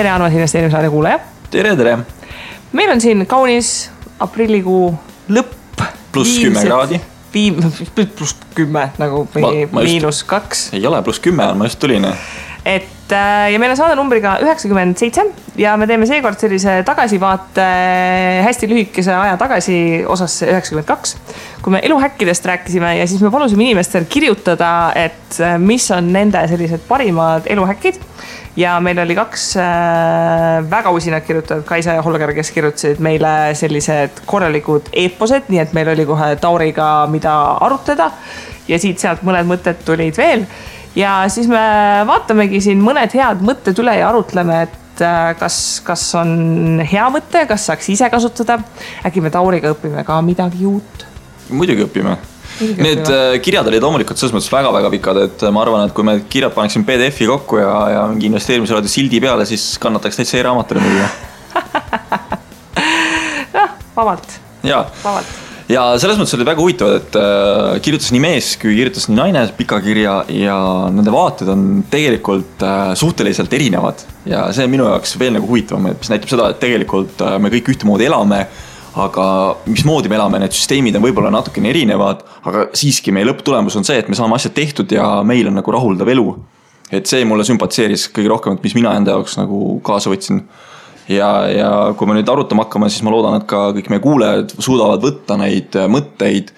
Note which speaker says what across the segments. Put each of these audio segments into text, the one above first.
Speaker 1: tere, armas investeerimisradio kuulaja.
Speaker 2: Tere.
Speaker 1: Meil on siin kaunis aprillikuu lõpp.
Speaker 2: +10 kraadi.
Speaker 1: +10 nagu -2.
Speaker 2: Ei ole, +10 on, ma just tulin.
Speaker 1: Ja meil on saade numbriga 97 ja me teeme seekord sellise tagasivaate hästi lühikese aja tagasi osasse 92, kui me eluhäkkidest rääkisime ja siis me palusime inimestel kirjutada, et mis on nende sellised parimad eluhäkkid. Ja meil oli 2 väga usinad kirjutajad, Kaisa ja Holger, kes kirjutasid meile sellised korralikud eeposed, nii et meil oli kohe Tauriga mida arutleda ja siit-sealt mõned mõtted tulid veel. Ja siis me vaatamegi siin mõned head mõtted üle ja arutleme, et kas on hea mõte, kas saaks ise kasutada. Äkki me Tauriga õpime ka midagi uut?
Speaker 2: Muidugi õpime. Need kirjad olid loomulikult selles mõttes väga-väga pikad, et ma arvan, et kui me kirjad paneksin PDF-i kokku ja mingi investeerimisraadi sildi peale, siis kannataks täitsa e-raamatule muidugi.
Speaker 1: Vabalt.
Speaker 2: Ja selles mõttes oli väga huvitavad, et kirjutas nii mees kui kirjutas nii naine pika kirja ja nende vaated on tegelikult suhteliselt erinevad. Ja see on minu jaoks veel nagu huvitavam, mis näitab seda, et tegelikult me kõik ühtemoodi elame, aga mismoodi me elame, need süsteemid on võib-olla natukene erinevad, aga siiski meie lõpptulemus on see, et me saame asjad tehtud ja meil on nagu rahuldav elu. Et see mulle sümpatseeris kõige rohkem, et mis mina enda jaoks nagu kaasa võtsin. Ja kui me nüüd arutama hakkame, siis ma loodan, et ka kõik meie kuulajad suudavad võtta neid mõtteid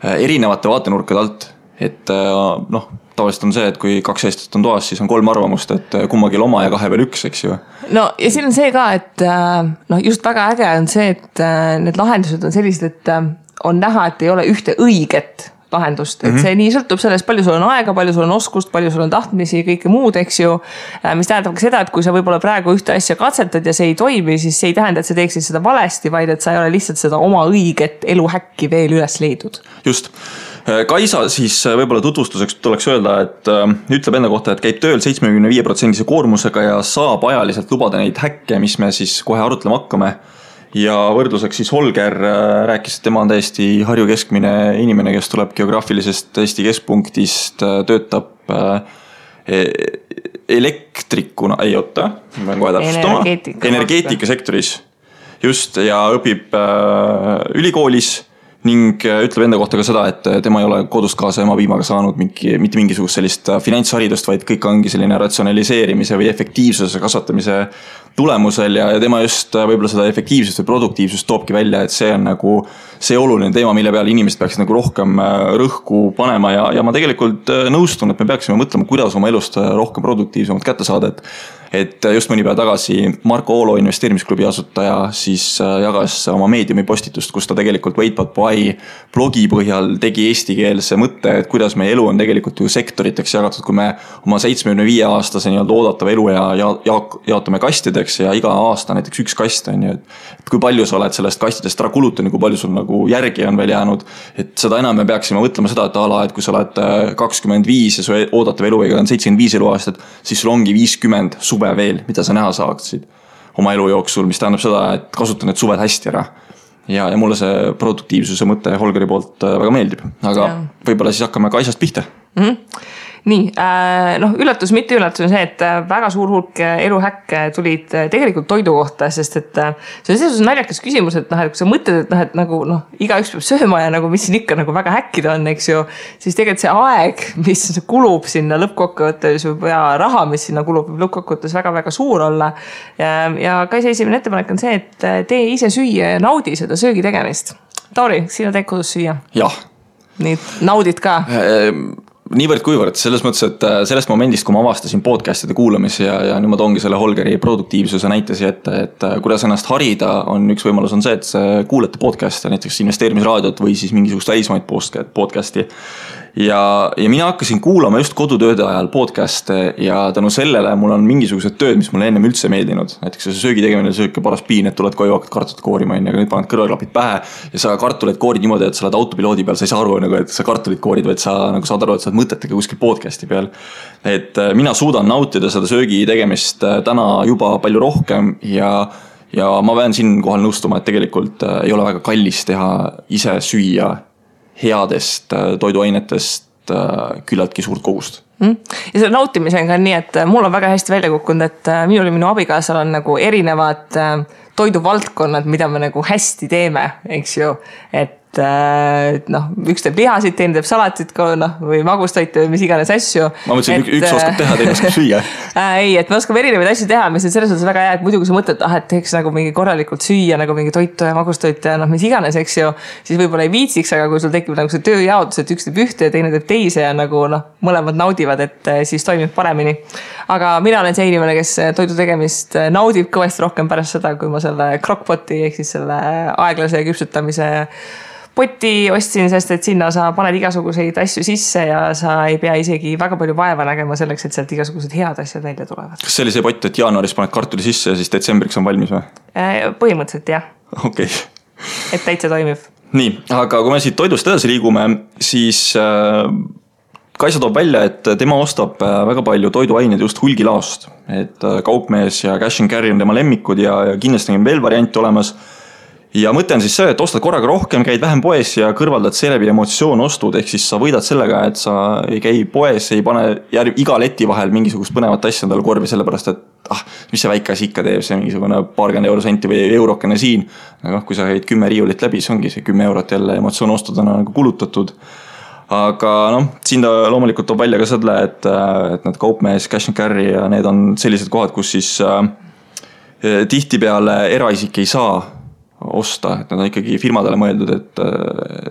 Speaker 2: erinevate vaatenurkade alt. Et tavaliselt on see, et kui 2 eestlased on toas, siis on 3 arvamust, et kummagil oma ja 2 veel 1, eks ju.
Speaker 1: No ja siin on see ka, et just väga äge on see, et need lahendused on sellised, et on näha, et ei ole ühte õiget lahendust, et see nii sõltub sellest, palju sul on aega, palju sul on oskust, palju sul on tahtmisi, kõike muud, eks ju, mis tähendab ka seda, et kui sa võib-olla praegu ühte asja katsetad ja see ei toimi, siis see ei tähenda, et sa teeksid seda valesti, vaid et sa ei ole lihtsalt seda oma õiget eluhäkki veel üles leidud.
Speaker 2: Just. Kaisa siis võib-olla tutvustuseks tuleks öelda, et ütleb enda kohta, et käib tööl 75% koormusega ja saab ajaliselt lubada neid häkke, mis me siis kohe arutlema hakkame. Ja võrdluseks siis Holger rääkis, et tema on täiesti Harju keskmine inimene, kes tuleb geograafilisest Eesti keskpunktist, töötab elektrikuna, ei oota, ma pean kohe täpsustama, energeetikasektoris just ja õpib ülikoolis ning ütleb enda kohta ka seda, et tema ei ole kodust kaasa ema piimaga saanud mitte mingisugust sellist finantsharidust, vaid kõik ongi selline ratsionaliseerimise või efektiivsuse kasvatamise tulemusel ja tema just võib-olla seda efektiivsust või produktiivsust toobki välja, et see on nagu see oluline teema, mille peale inimesed peaksid nagu rohkem rõhku panema ja ma tegelikult nõustun, et me peaksime mõtlema, kuidas oma elust rohkem produktiivsemalt kätte saada, et just mõni päev tagasi Marko Oolo investeerimisklubi asutaja siis jagas oma meediumi postitust, kus ta tegelikult Wait.by blogi põhjal tegi eestikeelse mõtte, et kuidas meie elu on tegelikult ju sektoriteks jagatud, kui me oma 75-aastase nii-öelda oodatava elu ja jaotame kastideks ja iga aasta näiteks 1 kast on ju, et kui palju sa oled sellest kastidest ära kulutanud, kui palju sul nagu järgi on veel jäänud, et seda enam me peaksime mõtlema seda, et kui sa oled 25 ja su oodatav eluiga on 75 eluaastat, siis sul ongi 50 suve veel, mida sa näha saaksid oma elu jooksul, mis tähendab seda, et kasuta need suved hästi ära. Ja mulle see produktiivsuse mõte Holgeri poolt väga meeldib, aga võib-olla siis hakkame Kaisast pihta.
Speaker 1: Nii, üllatus, mitte üllatus on see, et väga suur hulk eluhäkke tulid tegelikult toidu kohta, sest et see on selles naljakas küsimus, et kui sa mõtled, et nagu igaüks peab sööma ja nagu mis siin ikka nagu väga häkkida on, eks ju, siis tegelikult see aeg, mis kulub sinna lõppkokkuvõttes ja raha, mis sinna kulub lõppkokkuvõttes väga-väga suur olla. Ja Kaisa esimene ettepanek on see, et tee ise süüa ja naudi seda söögi tegemist. Tauri, sina teed kodus süüa?
Speaker 2: Jah.
Speaker 1: Nii, naudid ka?
Speaker 2: Niivõrd kuivõrd, selles mõttes, et sellest momendist, kui ma avastasin podcastide kuulamise ja nüüd ma toongi selle Holgeri produktiivsuse näitesi, et kuidas ennast harida, on üks võimalus on see, et kuulete podcast'e, näiteks investeerimisraadiot või siis mingisugust välismaid podcast'i. Ja mina hakkasin kuulama just kodutööde ajal podcast'e ja tänu sellele mul on mingisugused tööd, mis mulle ennem üldse meeldinud. Näiteks see söögi tegemine sööke paras piin, et tuled koju hakkad kartulit koorima, aga nüüd paned kõrvaklapid pähe ja sa kartulit koorid niimoodi, et sa oled autopiloodi peal, sa ei saa aru, et sa kartulit koorid, vaid sa nagu saad aru, et sa oled mõtetega kuskil podcast'i peal. Et mina suudan nautida seda söögi tegemist täna juba palju rohkem ja ma pean siin kohal nõustuma, et tegelikult ei ole väga kallis teha ise süüa headest toiduainetest küllaltki suurt kogust.
Speaker 1: Ja selle nautimisega on nii, et mul on väga hästi välja kukkunud, et minul ja minu abikaasal on nagu erinevad toiduvaldkonnad, mida me nagu hästi teeme, eks ju, et üks teeb lihasid, teine teeb salatit või magustoite või mis iganes asju.
Speaker 2: Ma mõtlesin, üks oskab teha, teine oskab süüa.
Speaker 1: Ei, et me oskame erinevaid asju teha, mis on selles suhtes väga hea, et muidu kui sa mõtled, et teeks nagu mingi korralikult süüa, nagu mingi toitu ja magustoite ja mis iganes, eks ju, siis võib-olla ei viitsiks, aga kui sul tekib nagu see tööjaotus, et üks teeb ühte ja teine teeb teise ja nagu mõlemad naudivad, et siis toimib paremini. Aga mina olen see inimene, kes toidu tegemist naudib kõvasti rohkem pärast seda, kui ma selle crockpoti ehk siis selle aeglase küpsutamise poti ostsin, sest et sinna sa paned igasuguseid asju sisse ja sa ei pea isegi väga palju vaeva nägema selleks, et sealt igasugused head asjad välja tulevad.
Speaker 2: Kas see oli see pott, et jaanuaris paned kartuli sisse ja siis detsembriks on valmis või?
Speaker 1: Põhimõtteliselt jah.
Speaker 2: Okay.
Speaker 1: Et täitsa toimib.
Speaker 2: Nii, aga kui me siit toidust edasi liigume, siis Kaisa toob välja, et tema ostab väga palju toiduaineid just hulgilaost. Et Kaupmees ja Cash and Carry on tema lemmikud ja kindlasti on veel variante olemas. Ja mõte on siis see, et ostad korraga rohkem, käid vähem poes ja kõrvaldad seeläbi emotsioon ostud, ehk siis sa võidad sellega, et sa ei käi poes, ei pane iga leti vahel mingisugust põnevat asja endale korvi, sellepärast et mis see väike asi ikka teeb, see mingisugune paarkümmend eurosenti või eurokene siin. Aga kui sa käid 10 riiulit läbi, see ongi see 10 eurot jälle emotsioon ostud on nagu kulutatud. Aga siin ta loomulikult toob välja ka selle, et need Kaupmees, Cash and Carry ja need on sellised kohad, kus siis tihtipeale eraisik ei saa osta, et nad on ikkagi firmadele mõeldud, et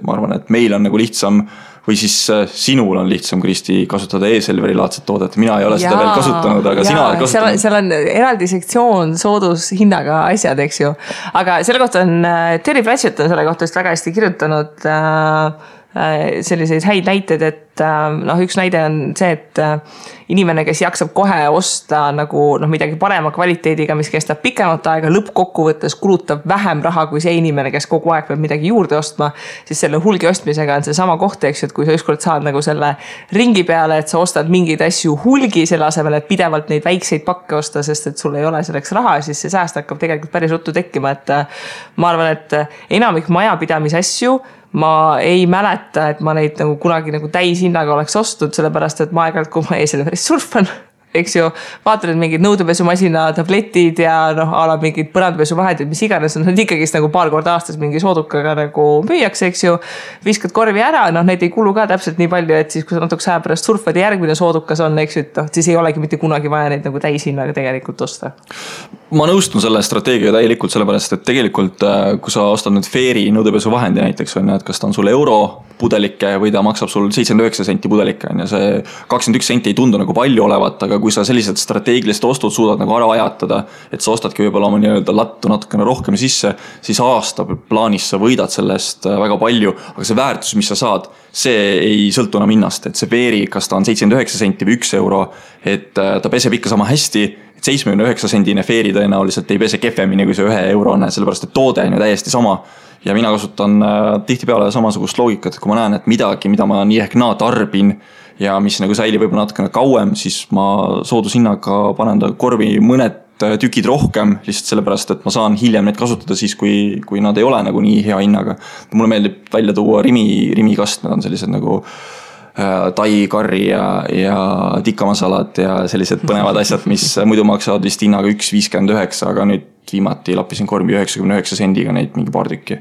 Speaker 2: ma arvan, et meil on nagu lihtsam või siis sinul on lihtsam, Kristi, kasutada e-Selveri laadset toodet. Mina ei ole seda veel kasutanud, aga sina oled kasutanud.
Speaker 1: Seal on eraldi sektsioon soodushinnaga asjad, eks ju. Aga selle kohta on, Terry Pratchett on selle kohta väga hästi kirjutanud selliseid häid näiteid, et üks näide on see, et inimene, kes jaksab kohe osta nagu midagi parema kvaliteediga, mis kestab pikemat aega, lõppkokkuvõttes kulutab vähem raha kui see inimene, kes kogu aeg peab midagi juurde ostma, siis selle hulgi ostmisega on see sama koht, eks ju, et kui sa ükskord saad nagu selle ringi peale, et sa ostad mingeid asju hulgi selle asemel, et pidevalt neid väikseid pakke osta, sest et sul ei ole selleks raha, siis see sääst hakkab tegelikult päris ruttu tekkima, et ma arvan, et enamik majapidamise asju ma ei mäleta, et ma neid nagu kunagi nagu täishinnaga oleks ostud, sellepärast, et ma aeg-ajalt, kui ma e-Selveris surfan, eks ju, vaatan, et mingid nõudepesumasina tabletid ja ala mingid põrandapesuvahendid, mis iganes on, need ikkagist nagu paar korda aastas mingi soodukaga nagu müüakse, eks ju, viskad korvi ära, need ei kulu ka täpselt nii palju, et siis kui sa natuke aja pärast surfad ja järgmine soodukas on, eks ju, et siis ei olegi mitte kunagi vaja neid nagu täishinnaga tegelikult osta.
Speaker 2: Ma nõustun selle strateegia täielikult sellepärast, et tegelikult kui sa ostad nüüd Fairy nõudepesuvahendi näiteks on, et kas ta on sul euro pudelike või ta maksab sul 79 senti pudelike ja see 21 senti ei tundu nagu palju olevat, aga kui sa sellised strateegilised ostud suudad nagu ära ajatada, et sa ostadki võib-olla oma nii-öelda lattu natukene rohkem sisse, siis aasta plaanis sa võidad sellest väga palju, aga see väärtus, mis sa saad, see ei sõltu enam hinnast, et see Fairy, kas ta on 79 senti või 1 euro, et ta peseb ikka sama hästi, 79 sendine Fairy tõenäoliselt ei pese kehvemini kui see 1 eurone, sellepärast et toode on ju täiesti sama. Ja mina kasutan tihtipeale samasugust loogikat, et kui ma näen, et midagi, mida ma nii ehk naa tarbin ja mis nagu säilib võib-olla natukene kauem, siis ma soodushinnaga panen ta korvi mõned tükid rohkem, lihtsalt sellepärast, et ma saan hiljem neid kasutada siis, kui nad ei ole nagu nii hea hinnaga. Mulle meeldib välja tuua rimikast, need on sellised nagu tai, karri ja tikamasalad ja sellised põnevad asjad, mis muidu maksavad vist hinnaga 1,59, aga nüüd viimati lappisin kormi 99 sendiga neid mingi paar tükki.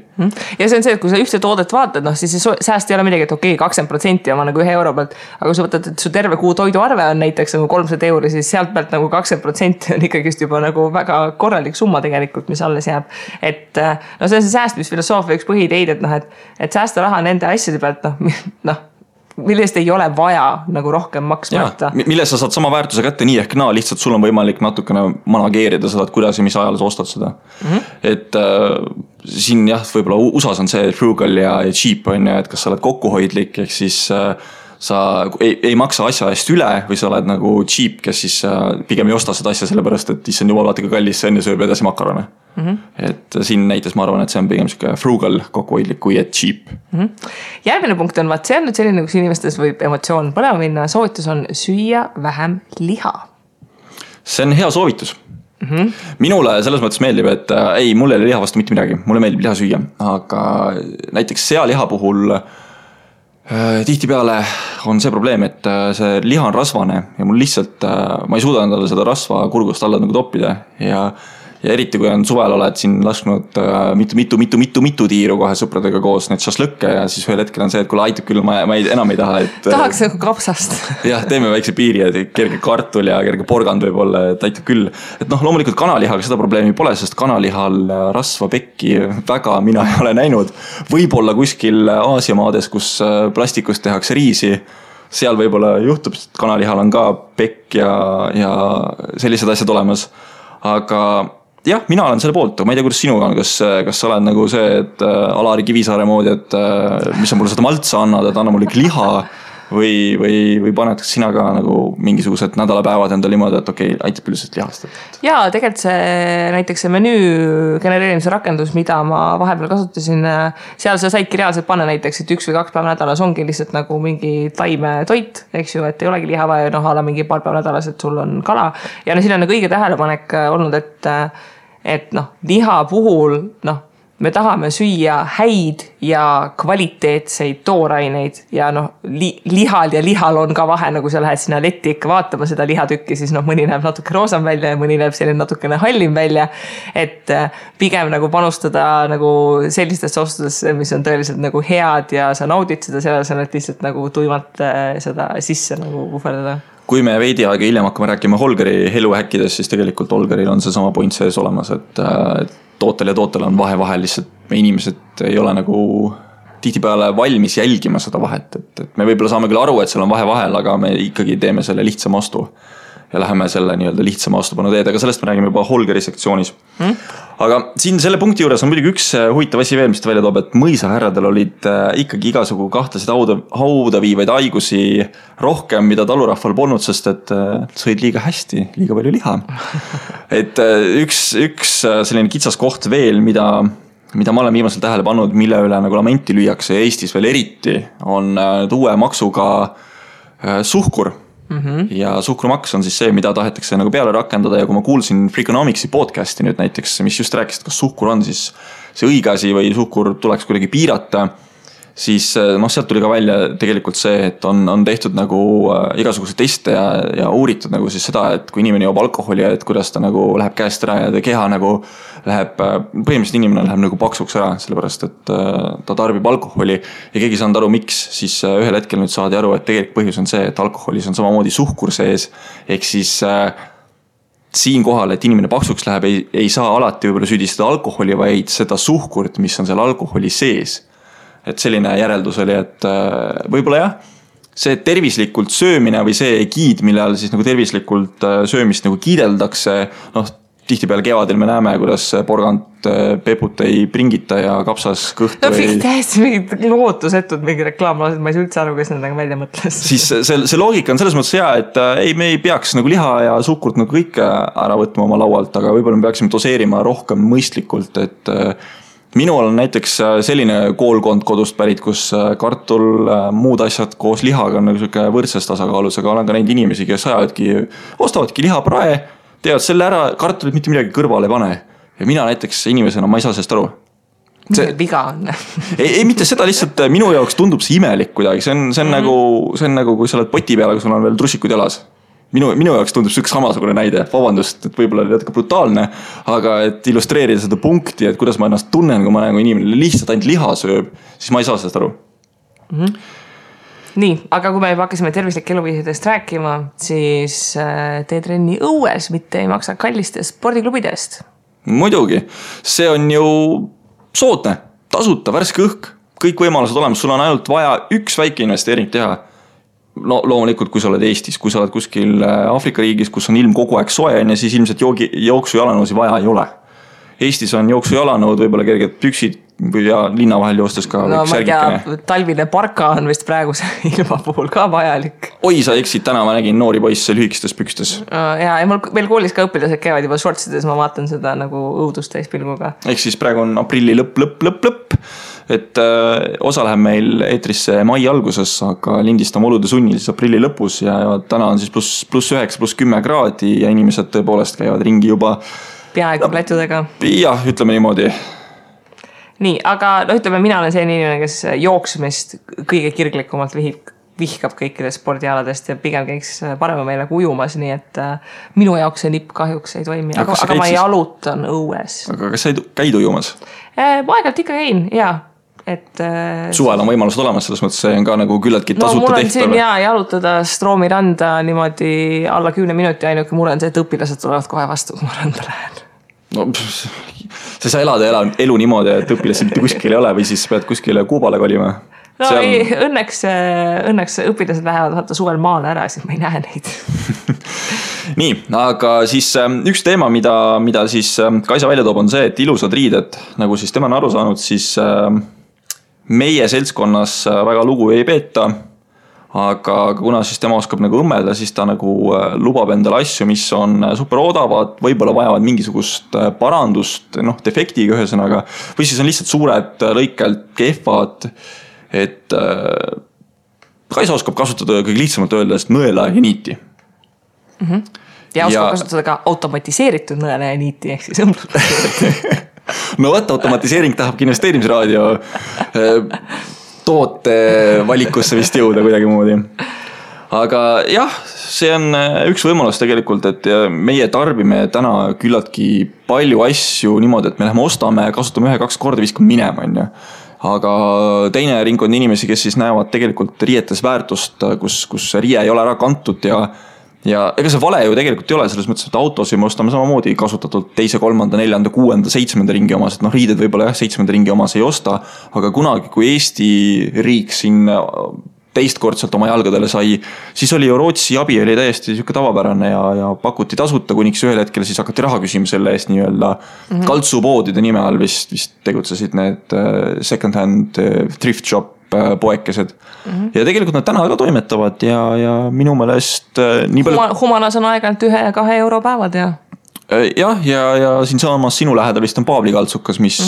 Speaker 1: Ja see on see, et kui sa ühte toodet vaatad, siis see sääst ei ole midagi, et okei, 20% on nagu 1 euro pealt, aga kui sa võtad, et su terve kuu toiduarve on näiteks nagu 300 euri, siis sealt pealt nagu 20% on ikkagist juba nagu väga korralik summa tegelikult, mis alles jääb. Et see on see säästmisfilosoofia üks põhiideid, et säästa raha nende asjade pealt, millest ei ole vaja nagu rohkem maksmata.
Speaker 2: Mille sa saad sama väärtuse kätte nii ehk naa, lihtsalt sul on võimalik natukene manageerida seda, et kuidas ja mis ajal sa ostad seda. Et siin jah, võib-olla USAs on see frugal ja cheap on ja, et kas sa oled kokkuhoidlik, ehk siis sa ei maksa asja eest üle või sa oled nagu cheap, kes siis pigem ei osta seda asja sellepärast, et issand jumal vaata ka kallis, see enne sööb edasi makarone. Et siin näites ma arvan, et see on pigem frugal kokkuhoidlik kui et cheap.
Speaker 1: Järgmine punkt on, see on nüüd selline, kus inimestes võib emotsioon põlema minna, soovitus on süüa vähem liha.
Speaker 2: See on hea soovitus. Minule selles mõttes meeldib, et mulle ei ole liha vastu mitte midagi, mulle meeldib liha süüa, aga näiteks sealiha puhul Tihtipeale on see probleem, et see liha on rasvane ja mul lihtsalt, ma ei suuda endale seda rasva kurgust alla nagu toppida ja eriti kui on suvel oled siin lasknud mitu tiiru kohe sõpradega koos need šašlõkke ja siis ühel hetkel on see, et kuule aitab küll, ma enam ei taha, et
Speaker 1: tahaks nagu kapsast.
Speaker 2: Jah, teeme väikse piiri, et kerge kartul ja kerge porgand võib olla, et aitab küll. Et loomulikult kanalihaga seda probleemi pole, sest kanalihal rasva pekki väga mina ei ole näinud. Võib-olla kuskil Aasia maades, kus plastikust tehakse riisi, seal võib-olla juhtub, et kanalihal on ka pekk ja sellised asjad olemas. Aga jah, mina olen selle poolt, aga ma ei tea, kuidas sinuga on, kas sa oled nagu see, et Alari Kivisaare moodi, et mis sa mulle seda maltsa annad, et anna mulle liha või paned sina ka nagu mingisugused nädalapäevad endale niimoodi, et okei, aitab üldiselt lihast.
Speaker 1: Jaa, tegelikult näiteks see menüü genereerimise rakendus, mida ma vahepeal kasutasin, seal sa saidki reaalselt panna näiteks, et 1 või 2 päeva nädalas ongi lihtsalt nagu mingi taimetoit, eks ju, et ei olegi liha vaja, ala mingi paar päeva nädalas, et sul on kala. Ja siin on nagu õige tähelepanek olnud, et liha puhul, me tahame süüa häid ja kvaliteetseid tooraineid ja lihal on ka vahe, nagu sa lähed sinna letti ikka vaatama seda lihatükki, siis mõni näeb natuke roosam välja ja mõni näeb selline natukene hallim välja, et pigem nagu panustada nagu sellistesse ostudesse, mis on tõeliselt nagu head ja sa naudid seda, selles on, et lihtsalt nagu tuimalt seda sisse nagu puhverdada.
Speaker 2: Kui me veidi aega hiljem hakkame rääkima Holgeri eluhäkkidest, siis tegelikult Holgeril on see sama point sees olemas, et tootel ja tootel on vahel lihtsalt me inimesed ei ole nagu tihtipeale valmis jälgima seda vahet, et me võib-olla saame küll aru, et seal on vahe vahel, aga me ikkagi teeme selle lihtsama ostu ja läheme selle nii-öelda lihtsama ostupanu teed, aga sellest me räägime juba Holgeri sektsioonis. Aga siin selle punkti juures on muidugi üks huvitav asi veel, mis ta välja toob, et mõisahärradel olid ikkagi igasugu kahtlasid hauda viivaid haigusi rohkem, mida talurahval polnud, sest et sõid liiga hästi, liiga palju liha. Et üks selline kitsas koht veel, mida ma olen viimasel tähele pannud, mille üle nagu lamenti lüüakse Eestis veel eriti, on uue maksuga suhkur. Ja suhkrumaks on siis see, mida tahetakse nagu peale rakendada ja kui ma kuulsin Freakonomicsi podcasti nüüd näiteks, mis just rääkis, et kas suhkur on siis see õige asi või suhkur tuleks kuidagi piirata, siis sealt tuli ka välja tegelikult see, et on tehtud nagu igasuguse teste ja uuritud nagu siis seda, et kui inimene joob alkoholi ja et kuidas ta nagu läheb käest ära ja ta keha nagu läheb, põhimõtteliselt inimene läheb nagu paksuks ära, sellepärast et ta tarbib alkoholi ja keegi saanud aru, miks, siis ühel hetkel nüüd saadi aru, et tegelikult põhjus on see, et alkoholis on samamoodi suhkur sees, ehk siis siin kohal, et inimene paksuks läheb, ei saa alati võib-olla süüdistada alkoholi, vaid seda suhkurt, mis on seal alkoholi sees. Et selline järeldus oli, et võib-olla jah, see tervislikult söömine või see giid, mille all siis nagu tervislikult söömist nagu kiideldakse, tihtipeale kevadel me näeme, kuidas porgand peput ei pringita ja kapsas kõhtu
Speaker 1: täiesti mingid lootusetud mingi reklaamlased, ma ei saa üldse aru, kes nendega välja mõtles.
Speaker 2: Siis see loogika on selles mõttes hea, et me ei peaks nagu liha ja suhkurt nagu kõike ära võtma oma laualt, aga võib-olla me peaksime doseerima rohkem mõistlikult, et minul on näiteks selline koolkond kodust pärit, kus kartul, muud asjad koos lihaga on nagu võrdses tasakaalus, aga olen ka neid inimesi, kes ostavadki lihaprae, teevad selle ära, kartulit mitte midagi kõrvale ei pane. Ja mina näiteks inimesena, ma ei saa sellest aru.
Speaker 1: Viga on.
Speaker 2: ei, mitte seda lihtsalt, minu jaoks tundub see imelik kuidagi. See on nagu, kui sa oled poti peal, aga sul on veel trussikud jalas. Minu jaoks tundub see üks samasugune näide. Vabandust, et võib-olla oli natuke brutaalne, aga et illustreerida seda punkti, et kuidas ma ennast tunnen, kui ma näen, kui inimene lihtsalt ainult liha sööb, siis ma ei saa sellest aru.
Speaker 1: Nii, aga kui me juba hakkasime tervislike eluviisidest rääkima, siis tee trenni õues, mitte ei maksa kallistest spordiklubidest.
Speaker 2: Muidugi, see on ju soodne, tasuta, värske õhk, kõik võimalused olemas, sul on ainult vaja üks väike investeering teha. No loomulikult, kui sa oled Eestis, kui sa oled kuskil Aafrika riigis, kus on ilm kogu aeg soe, ja siis ilmselt jooksu jalanõusi vaja ei ole. Eestis on jooksu jalanõud, võib-olla kerged püksid ja linna vahel joostes ka
Speaker 1: särgikene. Talvine parka on vist praeguse ilma puhul ka vajalik.
Speaker 2: Oi, sa eksid, täna ma nägin noori poisse lühikestes pükstes.
Speaker 1: Ja mul veel koolis ka õpilased käivad juba shortsides, ma vaatan seda nagu õudust täispilguga.
Speaker 2: Ehk siis praegu on aprilli lõpp. Et osa läheb meil eetrisse mai alguses, aga lindistame olude sunnil siis aprilli lõpus ja täna on siis +9, +10 kraadi ja inimesed tõepoolest käivad ringi juba
Speaker 1: peaaegu plätudega.
Speaker 2: Jah, ütleme niimoodi.
Speaker 1: nii, aga ütleme, mina olen selline inimene, kes jooksmist kõige kirglikumalt vihkab kõikidest spordialadest ja pigem käiks parema meile kui ujumas, nii et minu jaoks see nipp kahjuks ei toimi, aga ma jalutan õues.
Speaker 2: Aga kas sa käid ujumas?
Speaker 1: Ma aegalt ikka käin, jaa.
Speaker 2: Suvel on võimalused olemas, selles mõttes see on ka nagu küllaltki tasuta
Speaker 1: mul on siin jalutada Stroomi randa niimoodi alla 10 minuti, ainuke mure on see, et õpilased tulevad kohe vastu, kui ma randa lähen.
Speaker 2: No, sa saa elada elu niimoodi, et õpilased mitte kuskil ei ole või siis pead kuskile Kuubale kolima?
Speaker 1: No ei, õnneks õpilased lähevad vaata suvel maale ära, siis ma ei näe neid.
Speaker 2: Nii, aga siis üks teema, mida siis Kaisa välja toob, on see, et ilusad riided, nagu siis tema on aru saanud, siis meie seltskonnas väga lugu ei peeta, aga kuna siis tema oskab nagu õmmelda, siis ta nagu lubab endale asju, mis on super odavad, võib-olla vajavad mingisugust parandust, defektiga ühesõnaga, või siis on lihtsalt suured lõikelt kehvad, et Kaisa oskab kasutada kõige lihtsamalt öeldest nõela ja niiti.
Speaker 1: Ja oskab kasutada ka automatiseeritud nõela ja niiti, ehk siis õmblust.
Speaker 2: No võtta, automatiseering tahabki investeerimisraadio toote valikusse vist jõuda kuidagi moodi. Aga jah, see on üks võimalus tegelikult, et meie tarbime täna küllaltki palju asju niimoodi, et me läheme ostame, kasutame 1-2 korda, viskame minema, on ju. Aga teine ringkond inimesi, kes siis näevad tegelikult riietes väärtust, kus riie ei ole ära kantud ja ega see vale ju tegelikult ei ole, selles mõttes, et autos me ostame samamoodi kasutatud 2., 3., 4., 6., 7. ringi omas, et riided võib-olla 7. ringi omas ei osta, aga kunagi, kui Eesti riik siin teistkordselt oma jalgadele sai, siis oli ju Rootsi abi oli täiesti siuke tavapärane ja pakuti tasuta, kuniks ühel hetkel siis hakati raha küsima selle eest nii-öelda kaltsupoodide nime all vist tegutsesid need second hand thrift shop poekesed. Ja tegelikult nad täna ka toimetavad ja minu meelest nii palju...
Speaker 1: Humanas on aegalt 1-2 euro päevad ja...
Speaker 2: Jah, ja siin samamas sinu lähedal vist on Paavli kaltsukas, mis...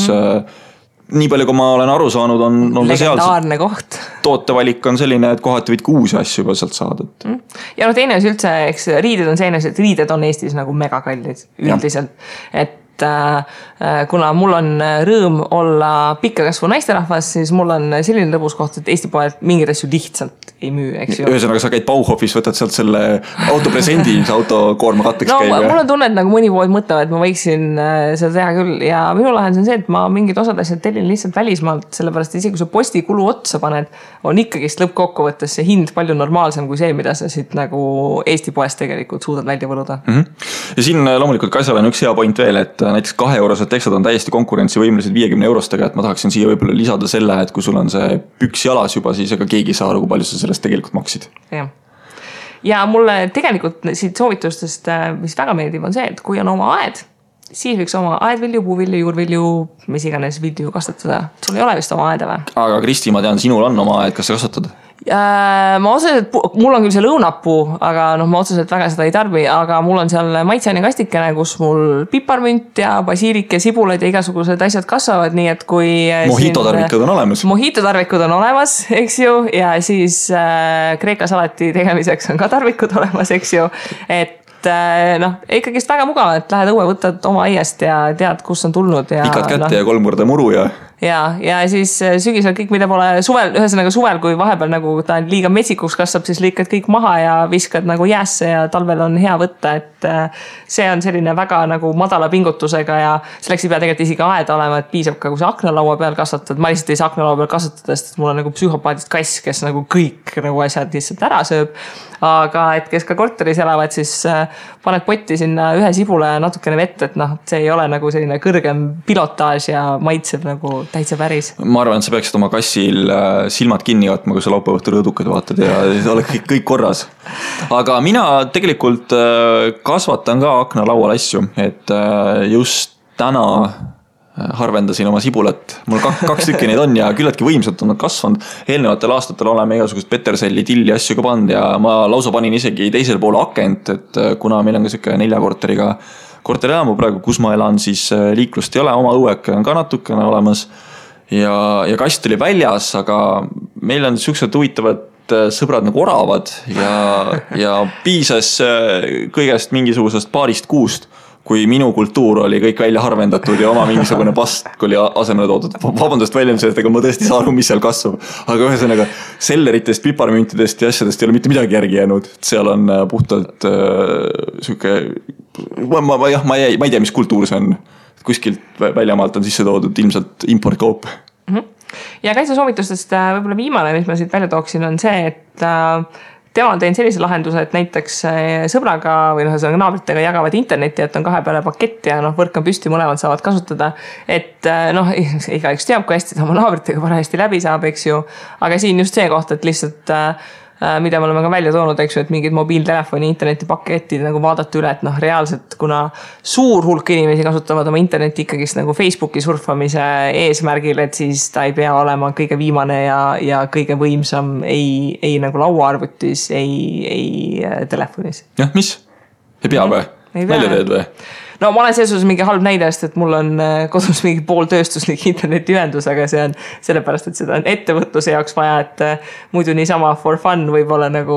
Speaker 2: Nii palju, kui ma olen aru saanud, on
Speaker 1: legendaarne koht.
Speaker 2: Tootevalik on selline, et kohati võid 6 asju juba sealt saada.
Speaker 1: Ja teine on üldse, eks riided on selline, et riided on Eestis nagu megakallid üldiselt. Et kuna mul on rõõm olla pikkakasvu naisterahvas, siis mul on selline lõbus koht, et Eesti poed mingid asju lihtsalt ei müü, eks ju.
Speaker 2: Ühesõnaga, sa käid Bauhofis, võtad sealt selle autopresendi, mis autokoorma katteks käib.
Speaker 1: Mul on tunne, et nagu mõni pood mõtlevad, et ma võiksin seda teha küll. Ja minu lahendus on see, et ma mingid osad asjad tellin lihtsalt välismaalt, sellepärast isegi kui sa postikulu otsa paned, on ikkagist lõppkokkuvõttes see hind palju normaalsem kui see, mida sa siit nagu Eesti poest tegelikult suudad välja võluda.
Speaker 2: Ja siin loomulikult Kaisal on üks hea point veel, et näiteks 2-eurosed teksad on täiesti konkurentsivõimelised 50 eurostega, et ma tahaksin siia võib-olla lisada selle, et kui sul on see püks jalas juba, siis ega keegi saa aru, kui palju sa sellest tegelikult maksid.
Speaker 1: Ja mulle tegelikult siit soovitustest, mis väga meeldib, on see, et kui on oma aed, siis võiks oma aedvilju, puuvilju, juurvilju, mis iganes vilju kasvatada. Sul ei ole vist oma aeda või?
Speaker 2: Aga Kristi, ma tean, sinul on oma aed, kas sa kasvatad?
Speaker 1: Ma otseselt, mul on küll see lõunapuu, aga ma otseselt väga seda ei tarbi, aga mul on seal maitseani kastikene, kus mul piparmünt ja basiilik ja sibulad ja igasugused asjad kasvavad, nii et kui...
Speaker 2: Mojito-tarvikud on olemas.
Speaker 1: Mojito-tarvikud on olemas, eks ju, ja siis kreeka salati tegemiseks on ka tarvikud olemas, eks ju, et ikkagist väga mugav, et lähed õue, võtad oma aiast ja tead, kus on tulnud.
Speaker 2: Pikad kätte ja 3 korda muru ja...
Speaker 1: Ja siis sügisel kõik, mida pole suvel, ühesõnaga suvel, kui vahepeal nagu ta liiga metsikuks kasvab, siis lõikad kõik maha ja viskad nagu jäässe ja talvel on hea võtta, et see on selline väga nagu madala pingutusega ja selleks ei pea tegelikult isegi aeda olema, et piisab ka, kui sa aknalaua peal kasvatad. Ma lihtsalt ei saa aknalaua peal kasvatada, sest mul on nagu psühhopaadist kass, kes nagu kõik nagu asjad lihtsalt ära sööb. Aga et kes ka korteris elavad, siis paned potti sinna ühe sibule ja natukene vett, et see ei ole nagu selline kõrgem pilotaaž ja maitseb nagu täitsa päris.
Speaker 2: Ma arvan, et sa peaksid oma kassil silmad kinni võtma, kui sa laupäeva õhtul rõõdukad vaatad ja oleks kõik korras. Aga mina tegelikult kasvatan ka aknalaual asju, et just täna harvendasin oma sibulat. Mul 2 tükki neid on ja küllaltki võimsalt on nad kasvanud. Eelnevatel aastatel oleme igasugust peterselli, tilli asju ka pannud ja ma lausa panin isegi teisel pool akent, et kuna meil on ka siuke 4 korteriga korterelamu praegu, kus ma elan, siis liiklust ei ole, oma õueke on ka natukene olemas ja kast oli väljas, aga meil on siuksed huvitavad sõbrad nagu oravad ja piisas kõigest mingisugusest paarist kuust, kui minu kultuur oli kõik välja harvendatud ja oma mingisugune pastk oli asemele toodud. Vabandust väljendused, ega ma tõesti saa aru, mis seal kasvab. Aga ühesõnaga selleritest, piparmüntidest ja asjadest ei ole mitte midagi järgi jäänud. Seal on puhtalt siuke, ma ei tea, mis kultuur see on. Kuskilt väljamaalt on sisse toodud ilmselt importkaup.
Speaker 1: Ja Kaisa soovitustest võib-olla viimane, mis ma siit välja tooksin, on see, et tema on teinud sellise lahenduse, et näiteks sõbraga või naabritega jagavad internetti, et on 2 peale pakett ja võrk on püsti, mõlemad saavad kasutada. Et igaüks teab, kui hästi ta oma naabritega parajasti läbi saab, eks ju. Aga siin just see koht, et lihtsalt mida me oleme ka välja toonud, eks ju, et mingid mobiiltelefoni internetipaketid nagu vaadata üle, et reaalselt, kuna suur hulk inimesi kasutavad oma internetti ikkagist nagu Facebooki surfamise eesmärgil, et siis ta ei pea olema kõige viimane ja kõige võimsam ei nagu lauaarvutis, ei telefonis.
Speaker 2: Jah, mis? Ei pea või? Välja teed või?
Speaker 1: No ma olen selles mingi halb näidest, et mul on kodus mingi pooltööstuslik internetiühendus, aga see on sellepärast, et seda on ettevõtluse jaoks vaja, et muidu niisama for fun võib-olla nagu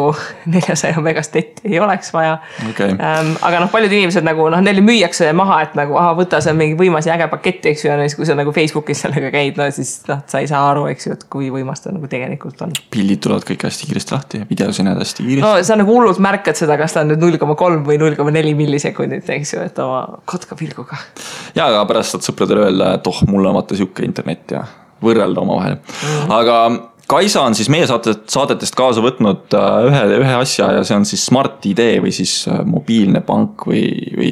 Speaker 1: 400 megast netti ei oleks vaja.
Speaker 2: Okay.
Speaker 1: Aga paljud inimesed nagu, neile müüakse maha, et nagu, võta see mingi võimas ja äge paketti, eks ju, ja kui sa nagu Facebookis sellega käid, siis sa ei saa aru, eks ju, et kui võimas ta nagu tegelikult on.
Speaker 2: Pildid tulevad kõik hästi kiiresti lahti ja videos ei näed hästi kiiresti.
Speaker 1: No sa nagu hullult märkad seda, kas ta on nüüd 0,3 või 0,4 millisekundit, eks ju, et oma kotka pilguga.
Speaker 2: Ja, aga pärast saad sõpradele öelda, et mul on vaata siuke internet ja võrrelda oma vahel. Aga Kaisa on siis meie saadetest kaasa võtnud ühe asja ja see on siis Smart ID või siis mobiilne pank või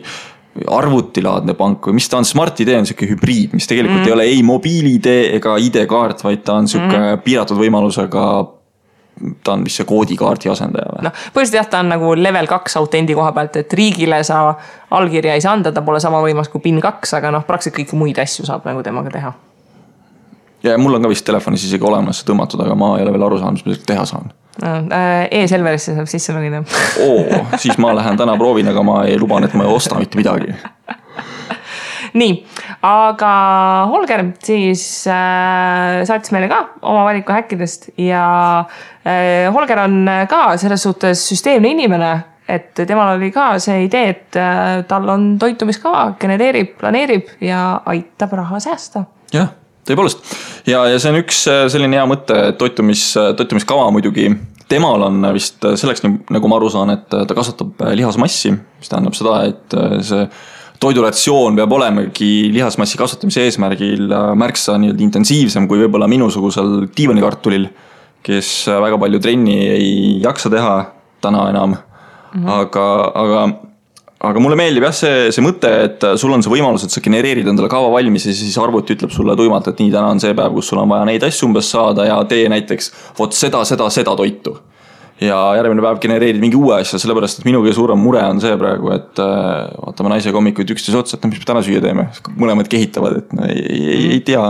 Speaker 2: arvutilaadne pank või mis ta on. Smart ID on siuke hübriid, mis tegelikult ei ole ei mobiil-ID ega ID-kaart, vaid ta on siuke piiratud võimalusega. Ta on vist see koodikaardi asendaja.
Speaker 1: Põhiliselt jah, ta on nagu level 2 autendi koha pealt, et riigile sa allkirja ei saa anda, ta pole sama võimas kui PIN 2, aga praktiliselt kõiki muid asju saab nagu temaga teha. Ja
Speaker 2: mul on ka vist telefonis isegi olemas tõmmatud, aga ma ei ole veel aru saanud, mis ma teha saan.
Speaker 1: E-Selverisse saab sisse logida.
Speaker 2: Siis ma lähen täna proovin, aga ma ei luban, et ma ei osta mitte midagi.
Speaker 1: Nii, aga Holger siis saatis meile ka oma valiku häkkidest ja Holger on ka selles suhtes süsteemne inimene, et temal oli ka see idee, et tal on toitumiskava, genereerib, planeerib ja aitab raha säästa.
Speaker 2: Jah, tõepoolest. Ja see on üks selline hea mõte, toitumiskava muidugi. Temal on vist selleks, nagu ma aru saan, et ta kasvatab lihasmassi, mis tähendab seda, et see toiduratsioon peab olemegi lihasmassi kasvatamise eesmärgil märksa intensiivsem kui võib-olla minusugusel diivanikartulil, kes väga palju trenni ei jaksa teha täna enam. Aga mulle meeldib jah see mõte, et sul on see võimalus, et sa genereerid endale kava valmis ja siis arvuti ütleb sulle tuimalt, et nii täna on see päev, kus sul on vaja neid asju umbes saada ja tee näiteks seda toitu. Ja järgmine päev genereerid mingi uue asja, sellepärast, et minu kõige suurem mure on see praegu, et vaatame naisega hommikuid üksteise otsa, et mis me täna süüa teeme. Mõlemad kehitavad, et ei tea.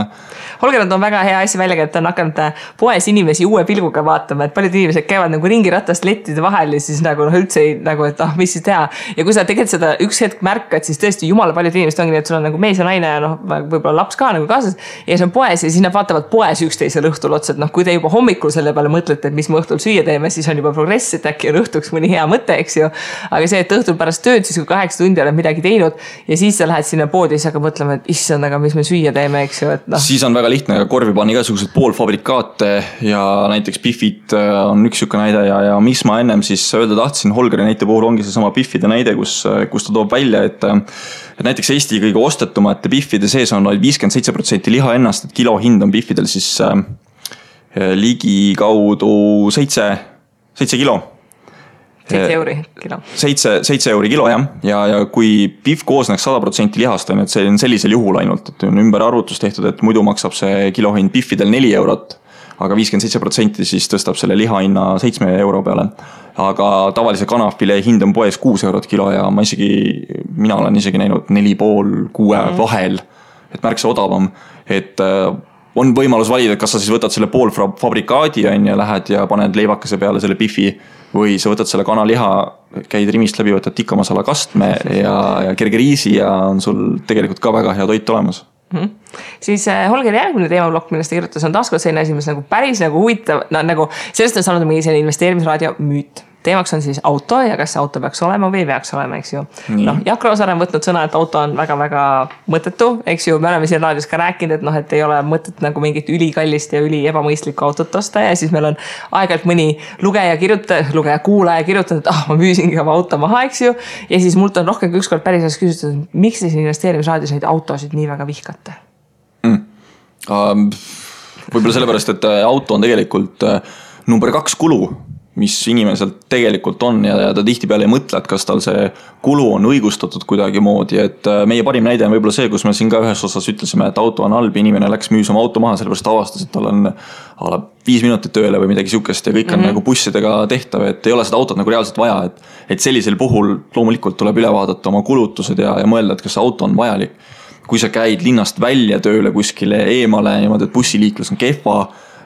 Speaker 1: Holger on väga hea asja välja, et on hakanud poes inimesi uue pilguga vaatama, et paljud inimesed käivad nagu ringi ratast lettide vahel ja siis nagu üldse ei, nagu, et mis siis teha. Ja kui sa tegelikult seda üks hetk märkad, siis tõesti jumala paljud inimesed ongi, et sul on nagu mees ja naine ja võib-olla laps ka nagu kaasas ja see on poes ja siis nad vaatavad poes üksteisel õhtul otsa, et kui te juba hommikul selle peale mõtlete, et mis me õhtul süüa teeme, siis on juba progress, et äkki on õhtuks mõni hea mõte, eks ju. Aga see, et õhtul pärast tööd, siis kui 8 tundi oled midagi teinud ja siis sa lähed sinna poodi ja siis hakkad mõtlema, et issand, aga mis me süüa teeme, eks ju.
Speaker 2: Siis on väga lihtne korvi panna igasugused poolfabrikaate ja näiteks Biffid on üks siuke näide ja mis ma ennem siis öelda tahtsin Holgeri näite puhul ongi see sama Biffide näide, kus ta toob välja, et näiteks Eesti kõige ostetumate Biffide sees on 57% liha ennast, et kilo hind on Biffidel siis ligi kaudu 7 kilo.
Speaker 1: 7 euri kilo.
Speaker 2: 7 euri kilo, jah. Ja kui Biff koosneks 100% lihast, on, et see on sellisel juhul ainult, et on ümber arvutus tehtud, et muidu maksab see kilohind Biffidel 4 eurot, aga 57% siis tõstab selle lihahinna 7 euro peale. Aga tavalise kanafile hind on poes 6 eurot kilo ja mina olen isegi näinud 4,5-6 vahel, et märksa odavam, et on võimalus valida, kas sa siis võtad selle poolfabrikaadi ja lähed ja paned leivakese peale selle Biffi või sa võtad selle kanaliha, käid rimist läbi, võtad tikkamasala kastme ja kerge riisi ja on sul tegelikult ka väga hea toit olemas.
Speaker 1: Siis Holgeri järgmine teemablokk, millest ta kirjutas, on taaskord selline asi, mis nagu päris nagu huvitav, nagu sellest on saanud mingi selline investeerimisraadio müüt. teemaks on siis auto ja kas see auto peaks olema või ei peaks olema, eks ju. Noh, Jaak Roosaar on võtnud sõna, et auto on väga-väga mõttetu, eks ju. Me oleme siin raadios ka rääkinud, et noh, et ei ole mõtet nagu mingit ülikallist ja üli ebamõistlikku autot osta ja siis meil on aeg-ajalt mõni kuulaja kirjutanud, et ma müüsingi oma auto maha, eks ju. Ja siis mult on rohkem kui ükskord päris küsitud, miks te siin investeerimisraadios neid autosid nii väga vihkate?
Speaker 2: Võib-olla sellepärast, et auto on tegelikult number 2 kulu, mis inimeselt tegelikult on ja ta tihtipeale ei mõtle, et kas tal see kulu on õigustatud kuidagi moodi, et meie parim näide on võib-olla see, kus me siin ka ühes osas ütlesime, et auto on halb, inimene läks müüs oma auto maha, sellepärast avastas, et tal on 5 minutit tööle või midagi sihukest ja kõik on nagu bussidega tehtav, et ei ole seda autot nagu reaalselt vaja, et sellisel puhul loomulikult tuleb üle vaadata oma kulutused ja mõelda, et kas see auto on vajalik. Kui sa käid linnast välja tööle kuskile eemale niimoodi, et bussiliiklus on kehva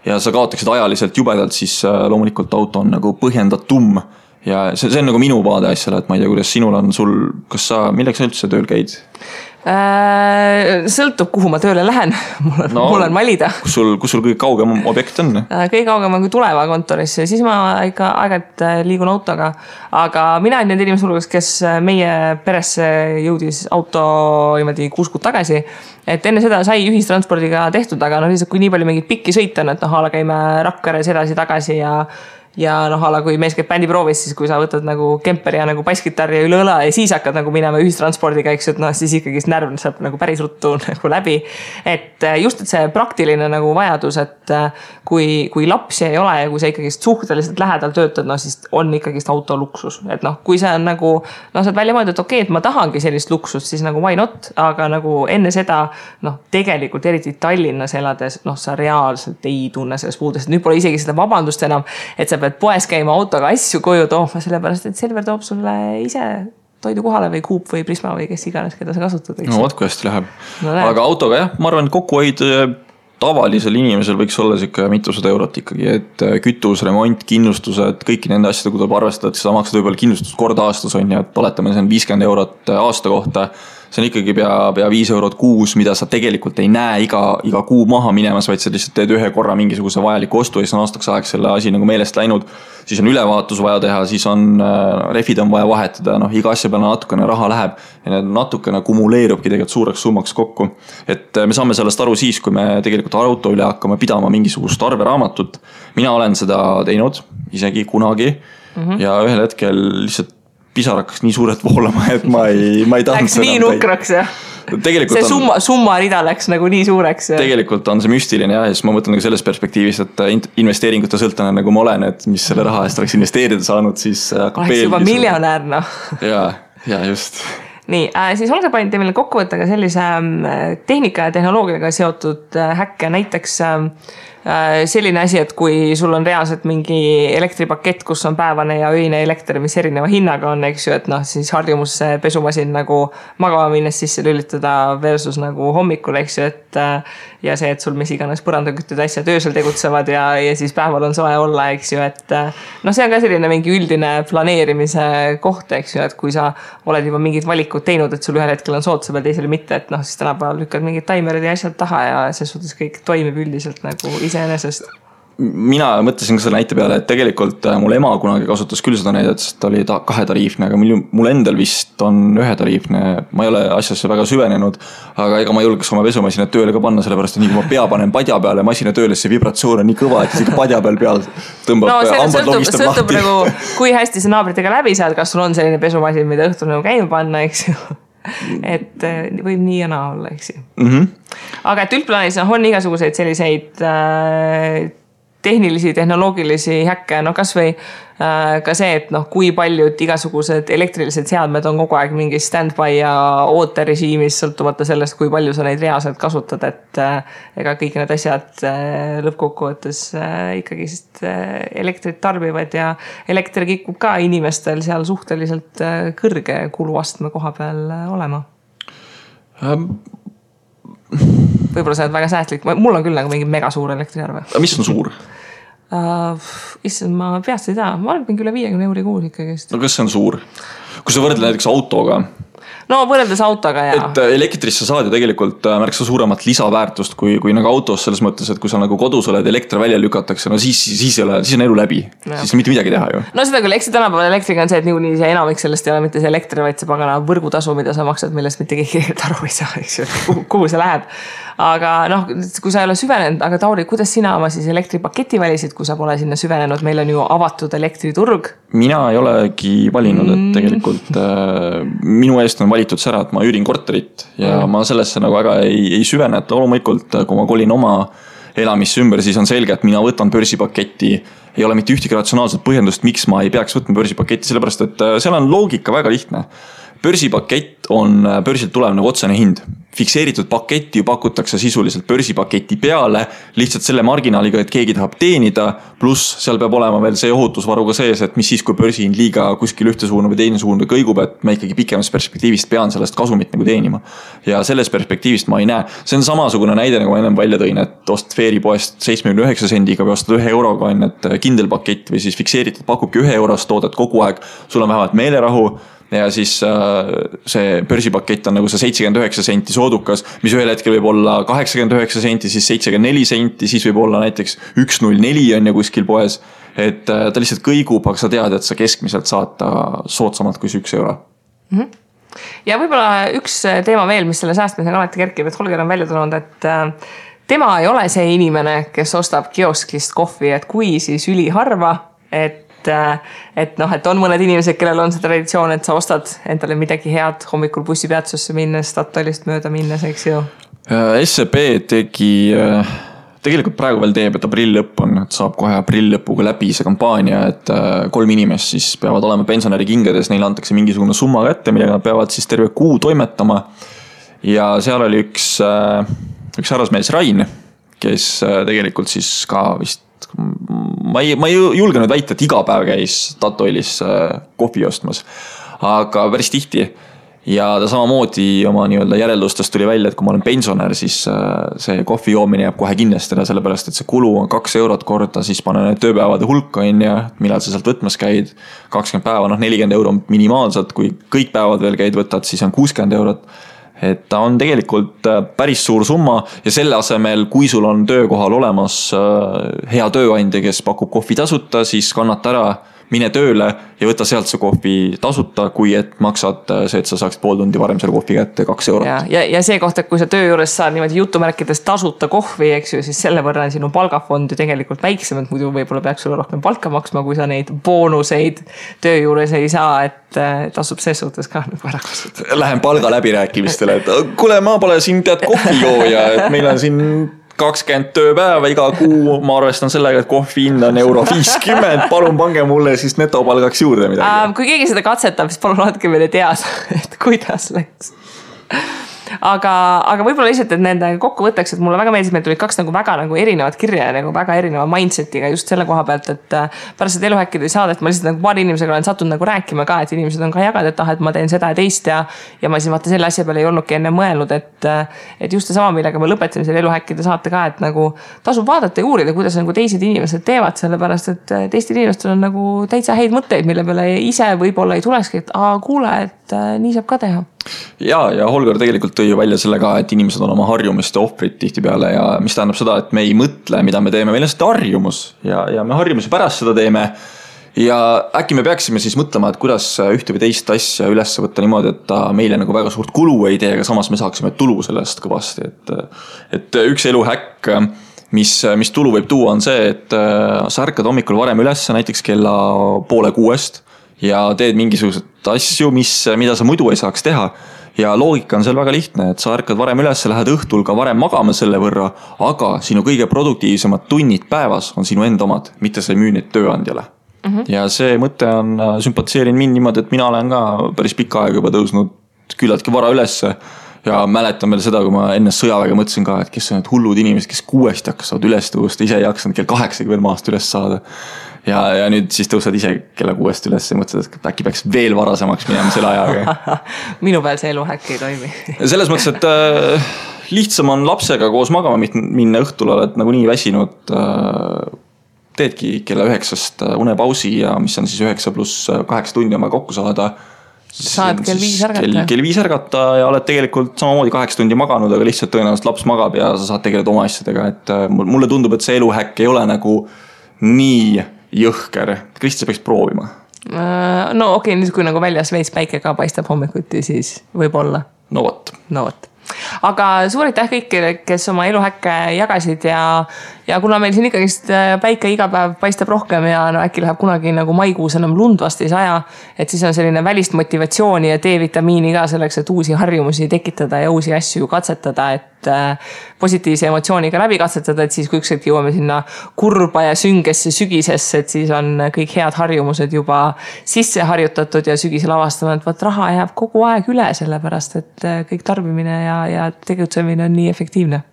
Speaker 2: ja sa kaotaksid ajaliselt jubedalt, siis loomulikult auto on nagu põhjendatum. Ja see on nagu minu vaade asjale, et ma ei tea, kuidas sinul on kas sa, milleks sa üldse tööl käid?
Speaker 1: Sõltub, kuhu ma tööle lähen. Mul on valida.
Speaker 2: Kus sul kõige kaugem objekt on?
Speaker 1: Kõige kaugem on kui Tuleva kontoris, siis ma ikka aeg-ajalt liigun autoga. Aga mina olen need inimesed hulgas, kes meie peresse jõudis auto 6 kuud tagasi. Et enne seda sai ühistranspordiga tehtud, aga lihtsalt kui nii palju mingid pikki sõita, et ala käime Rakveres edasi-tagasi ja ala kui mees käib bändiproovis, siis kui sa võtad nagu kemperi ja nagu basskitarri üle õla ja siis hakkad nagu minema ühistranspordiga, eks, et siis ikkagi närv saab nagu päris ruttu nagu läbi. Et just, et see praktiline nagu vajadus, et kui lapsi ei ole ja kui sa ikkagi suhteliselt lähedal töötad, siis on ikkagi auto luksus. Et kui see on nagu, sa oled välja mõeldud, et okei, et ma tahangi sellist luksust, siis nagu why not, aga nagu enne seda, tegelikult eriti Tallinnas elades, sa reaalselt ei tunne sellest puudest. Nüüd pole isegi seda vabandust enam, et sa pead poes käima autoga asju koju tooma, sellepärast, et Selver toob sulle ise toidu kohale või Coop või Prisma või kes iganes, keda sa kasutad.
Speaker 2: No vaat kui hästi läheb. Aga autoga jah, ma arvan, et kokkuhoid tavalisel inimesel võiks olla siuke mitusada eurot ikkagi, et kütus, remont, kindlustused, kõiki nende asjade, kui tuleb arvestada, et sa maksad võib-olla kindlustust kord aastas on ja oletame, see on 50 eurot aasta kohta. See on ikkagi pea 5 eurot kuus, mida sa tegelikult ei näe iga kuu maha minemas, vaid sa lihtsalt teed ühe korra mingisuguse vajaliku ostu ja siis on aastaks aeg selle asi nagu meelest läinud. Siis on ülevaatus vaja teha, siis on refid on vaja vahetada, iga asja peale natukene raha läheb ja need natukene kumuleerubki tegelikult suureks summaks kokku. Et me saame sellest aru siis, kui me tegelikult auto üle hakkame pidama mingisugust arveraamatut. Mina olen seda teinud isegi kunagi ja ühel hetkel lihtsalt pisar hakkas nii suurelt voolama, et ma ei tahtnud
Speaker 1: läks nii nukraks, jah? See summa rida läks nagu nii suureks. Ja.
Speaker 2: Tegelikult on see müstiline ja siis ma mõtlen nagu selles perspektiivis, et investeeringute sõltane nagu ma olen, et mis selle raha eest oleks investeerida saanud, siis
Speaker 1: oleks juba miljonär,
Speaker 2: Ja just.
Speaker 1: Nii, siis olge panid meile kokkuvõtta ka sellise tehnika ja tehnoloogiaga seotud häkke, näiteks selline asi, et kui sul on reaalselt mingi elektripakett, kus on päevane ja öine elekter, mis erineva hinnaga on, eks ju, et siis harjumus pesumasin nagu magama minnes sisse lülitada versus nagu hommikul, eks ju, et ja see, et sul mis iganes põrandakütted asjad öösel tegutsevad ja siis päeval on soe olla, eks ju, et see on ka selline mingi üldine planeerimise koht, eks ju, et kui sa oled juba mingid valikud teinud, et sul ühel hetkel on soodsa peal, teisele mitte, et siis tänapäeval lükkad mingid taimerid ja asjad taha ja see suhtes kõik toimib üldiselt nagu iseenesest.
Speaker 2: Mina mõtlesin ka selle näite peale, et tegelikult mul ema kunagi kasutas küll seda näidet, sest ta oli 2 tariifne, aga mul endal vist on 1 tariifne. Ma ei ole asjasse väga süvenenud, aga ega ma julgeks oma pesumasina tööle ka panna, sellepärast, et nii kui ma pea panen padja peale masina tööle, see vibratsioon on nii kõva, et isegi padja peal tõmbab hambad logistab lahti.
Speaker 1: Sõltub nagu, kui hästi sa naabritega läbi saad, kas sul on selline pesumasin, mida õhtul nagu käima panna, eks ju. Et võib nii ja naa olla, eks ju. Aga et üldplaanis on igasuguseid selliseid tehnilisi, tehnoloogilisi häkke, kas või ka see, et kui paljud igasugused elektrilised seadmed on kogu aeg mingi stand-by ja ooterežiimis sõltumata sellest, kui palju sa neid reaalselt kasutad, et ega kõik need asjad lõppkokkuvõttes ikkagi elektrit tarbivad ja elekter kikub ka inimestel seal suhteliselt kõrge kuluastme koha peal olema. Võib-olla sa oled väga säästlik, mul on küll nagu mingi mega suur elektriarve.
Speaker 2: Mis on suur?
Speaker 1: Issand, ma peast ei tea, ma arvan üle 50 euri kuus ikkagi.
Speaker 2: No kas see on suur? Kui sa võrdle näiteks autoga?
Speaker 1: no võrreldes autoga ja.
Speaker 2: Et elektrisse saad ju tegelikult märksa suuremat lisaväärtust kui nagu autos selles mõttes, et kui sa nagu kodus oled, elekter välja lükatakse, no siis on elu läbi. Siis mitte midagi teha ju.
Speaker 1: No seda küll, eks tänapäeval elektriga on see, et niikuinii see enamik sellest ei ole mitte see elektri, vaid see pagana võrgutasu, mida sa maksad, millest mitte keegi aru ei saa, eks ju, kuhu see läheb. Aga noh, kui sa ei ole süvenenud, aga Tauri, kuidas sina oma siis elektripaketi valisid, kui sa pole sinna süvenenud, meil on ju avatud elektriturg?
Speaker 2: Mina ei olegi valinud, et tegelikult minu eest on valitud see ära, et ma üürin korterit ja ma sellesse nagu väga ei süvene, et loomulikult, kui ma kolin oma elamisse ümber, siis on selge, et mina võtan börsipaketti, ei ole mitte ühtegi ratsionaalset põhjendust, miks ma ei peaks võtma börsipaketti, sellepärast et seal on loogika väga lihtne. Börsipakett on börsilt tulev nagu otsene hind. Fikseeritud paketti ju pakutakse sisuliselt börsipaketi peale, lihtsalt selle marginaaliga, et keegi tahab teenida, pluss seal peab olema veel see ohutusvaruga sees, et mis siis, kui börsihind liiga kuskil ühte suunda või teine suunda kõigub, et ma ikkagi pikemas perspektiivist pean sellest kasumit nagu teenima. Ja selles perspektiivist ma ei näe. See on samasugune näide, nagu ma ennem välja tõin, et ostad Veeripoest 79 sendiga või ostad 1 euroga, et kindel pakett või siis fikseeritud pakubki 1 eurost toodet kogu aeg, sul on vähemalt meelerahu. Ja siis see börsipakett on nagu see 79 senti soodukas, mis ühel hetkel võib olla 89 senti, siis 74 senti, siis võib olla näiteks 104 on ja kuskil poes. Et ta lihtsalt kõigub, aga sa tead, et sa keskmiselt saad ta soodsamalt kui 1 euro.
Speaker 1: Ja võib-olla üks teema veel, mis selle säästmisega alati kerkib, et Holger on välja tulnud, et tema ei ole see inimene, kes ostab kioskist kohvi, et kui siis üliharva, et on mõned inimesed, kellel on see traditsioon, et sa ostad endale midagi head hommikul bussipeatsusse minnes, Statoilist mööda minnes, eks ju?
Speaker 2: SEB tegi, tegelikult praegu veel teeb, et aprill lõpp on, et saab kohe aprill lõpuga läbi see kampaania, et 3 inimest siis peavad olema pensionäri kingades, neile antakse mingisugune summa kätte, millega nad peavad siis terve kuu toimetama. Ja seal oli üks härrasmees Rain, kes tegelikult siis ka vist ma ei julge nüüd väita, et iga päev käis Statoilis kohvi ostmas, aga päris tihti. Ja ta samamoodi oma nii-öelda järeldustest tuli välja, et kui ma olen pensionär, siis see kohvi joomine jääb kohe kindlasti ära, sellepärast et see kulu on 2 eurot korda, siis panen need tööpäevade hulka ja millal sa sealt võtmas käid, 20 päeva, 40 euro minimaalselt, kui kõik päevad veel käid võtad, siis on 60 eurot. Et ta on tegelikult päris suur summa ja selle asemel, kui sul on töökohal olemas hea tööandja, kes pakub kohvi tasuta, siis kannata ära, mine tööle ja võta sealt see kohvi tasuta, kui et maksad see, et sa saaksid pool tundi varem selle kohvi kätte 2 eurot.
Speaker 1: Ja see koht, et kui sa töö juures saad niimoodi jutumärkides tasuta kohvi, eks ju, siis selle võrra on sinu palgafond ju tegelikult väiksem, et muidu võib-olla peaks sulle rohkem palka maksma, kui sa neid boonuseid töö juures ei saa, et tasub ses suhtes ka nagu ära kasutada.
Speaker 2: Lähen palga läbirääkimistele, et kuule, ma pole siin tead kohvijooja, et meil on siin 20 tööpäeva iga kuu, ma arvestan sellega, et kohvi hind on €50, palun pange mulle siis netopalgaks juurde midagi.
Speaker 1: Kui keegi seda katsetab, siis palun andke meile teada, et kuidas läks. Aga võib-olla lihtsalt, et nende kokkuvõtteks, et mulle väga meeldis, meil tulid 2 nagu väga nagu erinevad kirja ja nagu väga erineva mindsetiga just selle koha pealt, et pärast seda eluhäkkide saadet ma lihtsalt nagu paari inimesega olen sattunud nagu rääkima ka, et inimesed on ka jaganud, et ma teen seda ja teist ja ma siis vaata selle asja peale ei olnudki enne mõelnud, et just sama, millega me lõpetasime selle eluhäkkide saate ka, et nagu tasub vaadata ja uurida, kuidas nagu teised inimesed teevad, sellepärast et teistel inimestel on nagu täitsa häid mõtteid, mille peale ise võib-olla ei tulekski, et kuule, et nii saab ka teha.
Speaker 2: Ja Holger tegelikult tõi välja selle ka, et inimesed on oma harjumiste ohvrid tihtipeale ja mis tähendab seda, et me ei mõtle, mida me teeme, meil on seda harjumus ja me harjumuse pärast seda teeme ja äkki me peaksime siis mõtlema, et kuidas ühte või teist asja üles võtta niimoodi, et ta meile nagu väga suurt kulu ei tee, aga samas me saaksime tulu sellest kõvasti, et üks eluhäkk, mis tulu võib tuua, on see, et sa ärkad hommikul varem üles näiteks kella 5:30 ja teed mingisugused asju, mida sa muidu ei saaks teha. Ja loogika on seal väga lihtne, et sa ärkad varem üles, lähed õhtul ka varem magama selle võrra, aga sinu kõige produktiivsemad tunnid päevas on sinu enda omad, mitte sa ei müü neid tööandjale. Ja see mõte on sümpatiseerinud mind niimoodi, et mina olen ka päris pikka aega juba tõusnud küllaltki vara ülesse ja mäletan veel seda, kui ma enne sõjaväega mõtlesin ka, et kes on need hullud inimesed, kes 6 hakkavad üles tõusta, ise ei jaksanud kell 8 veel maast üles saada. Ja nüüd siis tõusad ise kella 6 üles ja mõtled, et äkki peaks veel varasemaks minema selle ajaga.
Speaker 1: Minu peal see eluhäkk ei toimi.
Speaker 2: Selles mõttes, et lihtsam on lapsega koos magama minna õhtul, oled nagu nii väsinud, teedki kella 9 unepausi ja mis on siis 9 + 8 tundi oma kokku saada,
Speaker 1: saad kell 5 ärgata.
Speaker 2: Kell 5 ärgata ja oled tegelikult samamoodi 8 tundi maganud, aga lihtsalt tõenäoliselt laps magab ja sa saad tegeleda oma asjadega, et mulle tundub, et see eluhäkk ei ole nagu nii jõhker. Kristi, sa peaks proovima.
Speaker 1: No okei, nüüd kui nagu väljas veits päike ka paistab hommikuti, siis võib olla.
Speaker 2: No vot.
Speaker 1: Aga suur aitäh kõikidele, kes oma eluhäkke jagasid ja kuna meil siin ikkagist päike iga päev paistab rohkem ja no äkki läheb kunagi nagu maikuus enam lund vast ei saja, et siis on selline välist motivatsiooni ja D-vitamiini ka selleks, et uusi harjumusi tekitada ja uusi asju katsetada, et positiivse emotsiooniga läbi katsetada, et siis kui ükskord jõuame sinna kurba ja süngesse sügisesse, et siis on kõik head harjumused juba sisse harjutatud ja sügisel avastame, et võt raha jääb kogu aeg üle, sellepärast et kõik tarbimine ja tegutsemine on nii efektiivne.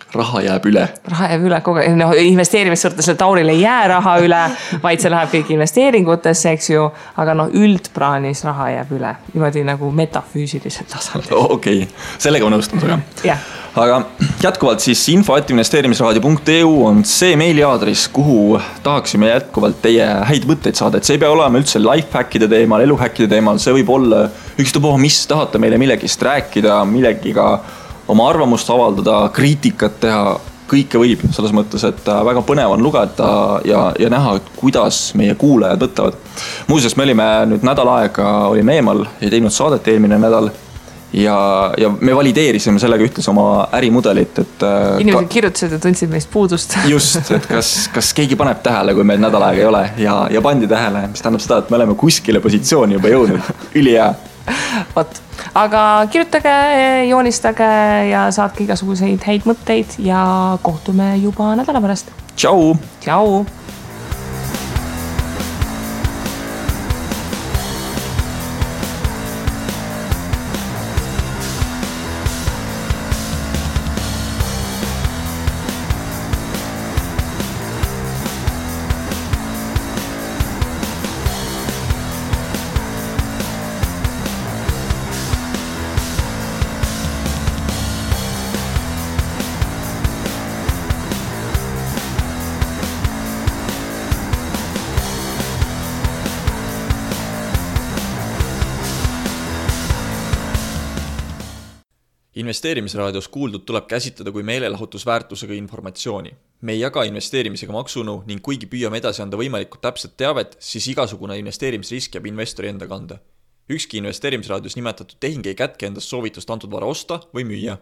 Speaker 2: Raha jääb üle
Speaker 1: kogu aeg, no investeerimissortes Tauril ei jää raha üle, vaid see läheb kõik investeeringutesse, eks ju, aga no üldpraanis raha jääb üle, niimoodi nagu metafüüsilisel tasandil.
Speaker 2: Okei, sellega on nõustunud,
Speaker 1: jah.
Speaker 2: Aga jätkuvalt siis info@investeerimisraadio.eu on see meiliaadris, kuhu tahaksime jätkuvalt teie häid mõtteid saada, et see ei pea olema üldse lifehackide teemal, eluhackide teemal, see võib olla ükstapuha, mis tahate meile millegist rääkida, millegiga oma arvamust avaldada, kriitikat teha, kõike võib selles mõttes, et väga põnev on lugeda ja näha, kuidas meie kuulajad võtavad. Muuseas, me olime nüüd nädal aega olime eemal ja teinud saadet eelmine nädal ja me valideerisime sellega ühtlasi oma ärimudelit, et
Speaker 1: inimesed kirjutasid ja tundsid meist puudust.
Speaker 2: Just, et kas keegi paneb tähele, kui meil nädal aega ei ole ja pandi tähele, mis tähendab seda, et me oleme kuskile positsiooni juba jõudnud. Ülihea.
Speaker 1: Vot. Aga kirjutage, joonistage ja saatke igasuguseid häid mõtteid ja kohtume juba nädala pärast.
Speaker 2: Tšau! Investeerimisraadios kuuldud tuleb käsitleda kui meelelahutusväärtusega informatsiooni. Me ei jaga investeerimisega maksunu ning kuigi püüame edasi anda võimalikult täpset teavet, siis igasugune investeerimisrisk jääb investori enda kanda. Ükski investeerimisraadios nimetatud tehing ei kätke endast soovitust antud vara osta või müüa.